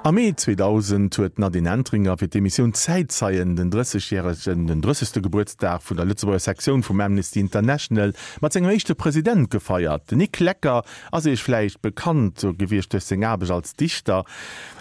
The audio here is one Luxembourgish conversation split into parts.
Am Mee 2000 huet d'Nadine Entringer fir d'Emissioun Zäitzeien den drëssegjäregen, den drëssegste Gebuertsdag vun der Lëtzebuerger Sektioun vum Amnesty International mat sengem éischte President gefeiert. Den Nic Lecker ass Iech vläicht bekannt gewiescht duerch seng Aarbecht als Dichter.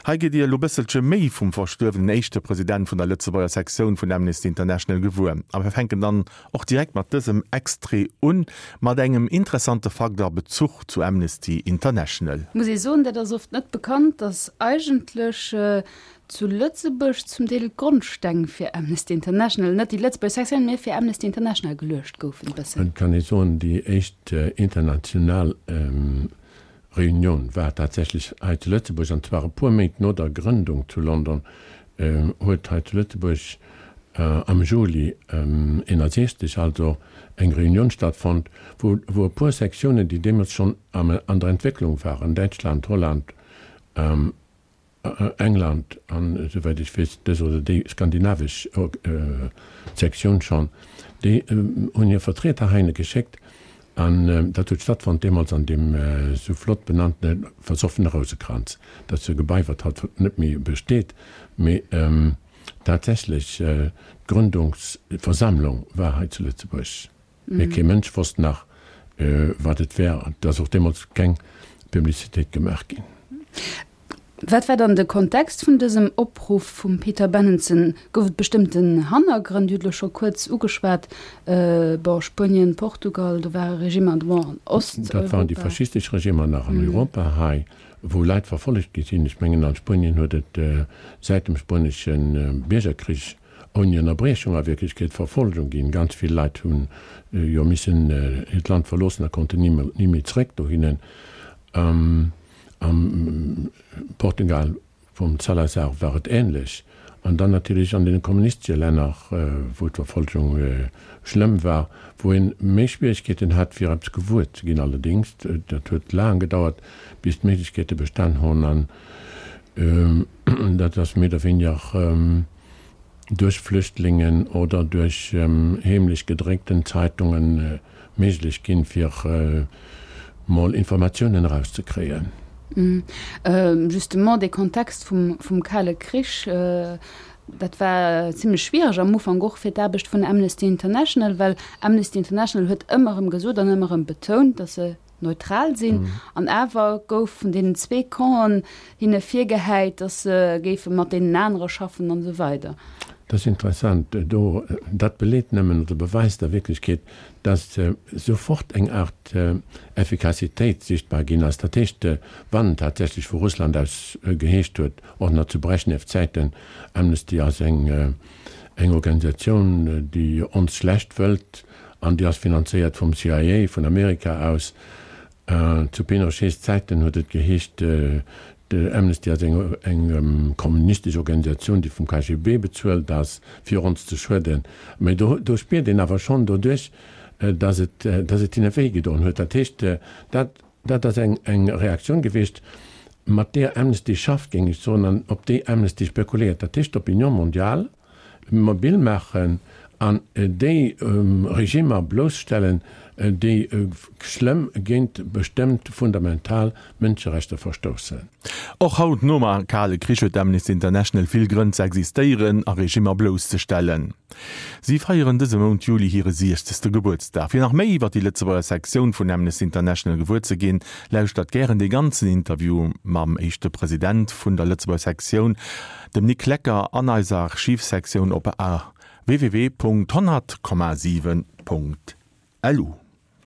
Hei gitt Dir elo bësselche méi vum verstuerwenen éischte President vun der Lëtzebuerger Sektioun vun Amnesty International gewuer. A mir fänken dann och direkt mat dësem Extrait un, mat engem interessante Fakt a Bezuch zu Amnesty International. Muss ee soen, dat ass oft net bekannt, dass eigentlech zu Lëtzebuerg zum Deel d'Grondsteng fir Amnesty International, net déi Lëtzebuerger Sektioun, mee fir Amnesty International geluecht goufen e bëssen. Et kann ee soen, déi éischt international Reunioun war tatsächlech hei zu Lëtzebuerg, an zwar e puer Méint no der Grëndung zu London, huet hei zu Lëtzebuerg am Juli 61 also eng Reunioun stattfonnt, wou wou e puer Sektiounen, déi deemools schonn an der Entwécklung waren, Däitschland, Holland, England an, esouwäit ech weess, dës oder déi skandinavesch Sektioun schonn, déi hunn hir Vertrieder heihinne geschéckt an dat huet stattfonnt deemools an deem esou flott benannte versoffene Rousekranz. Dat ass e Gebai, wat haut net méi besteet, mee tatsächlech d'Gründungsversammlung war hei zu Lëtzebuerg. Mee kee Mënsch wosst nach, wat et wär. Et ass och deemools keng Publicitéit gemaach ginn. Wat war dann de Kontext vun dësem Opruff vum Peter Benenson? Gouf et bestëmmten Hannergrënn? Dir hutt elo scho kuerz ugeschwat, bon, Spuenien, Portugal, do ware Regimmer, bon, an Osteuropa. Dat waren déi faschistesch Regimmer nach an Europa hei, wou Leit verfollegt gi sinn. Ech mengen, an Spuenien huet et säit dem spuenesche Biergerkrich ouni Ënnerbriechung a Wierklechkeet Verfolgung ginn. Ganz vill Leit hu jo missen hiert Land verloossen a konnten ni méi zréck dohinnen. Am Portugal vum Salazar war et änlech. An dann natierlech an deene kommunistesche Länner, wou d'Verfolgung schlëmm war, wou ee méi Schwieregkeeten hat, fir eppes gewuer ze ginn. Allerdéngs, dat huet laang gedauert, bis d'Méiglechkeete bestan hunn. An dat ass méi oder wéiniger duerch Flüchtlingen oder duerch heemlech gedréckten Zeitungen méiglech ginn, fir mol Informatiounen erauszekréien. Justement, dee Kontext vum Kale Krich, dat war zimlech schwiereg am Ufank och fir d'Aarbecht vun Amnesty International, well Amnesty International huet ëmmer erëm gesot an ëmmer erëm betount, datt se neutral sinn. An awer gouf vun deenen zwee Campen hinne virgehäit, datt se géife mat deenen anere schaffen an esou weider. Dat ass interessant. Do, dat beleet nëmmen oder beweist a Wierklechkeet, datt sofort eng Aart Effikassitéit sichtbar ginn ass. Dat heescht, wann tatsächlech vu Russland aus geheescht huet, och nach zu Brezhnev-Zäiten, Amnesty ass eng Organisatioun, déi ons schlecht wëllt, An déi ass finanzéiert vum CIA, vun Amerika aus. Zu Pinochets Zäiten huet et geheescht, Amnesty ass eng kommunistesch Organisatioun, déi vum KGB bezuelt ass, fir ons ze schueden. Mä do spiert een awer schonn doduerch, datt et, datt et hinne wéi gedoen huet. Dat heescht, dat, dat ass eng Reaktioun gewiescht, mat deeër Amnesty schafft, géing ech soen, an op déi Amnesty spekuléiert. Dat heescht, d'Opinion mondiale mobil maachen an déi Regimmer blousstellen, déi schlëmm géint bestëmmt fundamental Mënscherechter verstoussen. Och haut, nom Kale Krich, huet Amnesty International vill Grënn ze existéieren a Regimmer blousszestellen. Si feieren dëse Mount Juli hire siechzegste Gebuertsdag. Fir nach méi iwwer déi Lëtzebuerger Sektioun vun Amnesty International gewuer ze ginn, lauschtert gären dee ganzen Interview mam éischte President vun der Lëtzebuerger Sektioun, Dem Nic Lecker an eiser Archivsektioun op www.100,7.lu.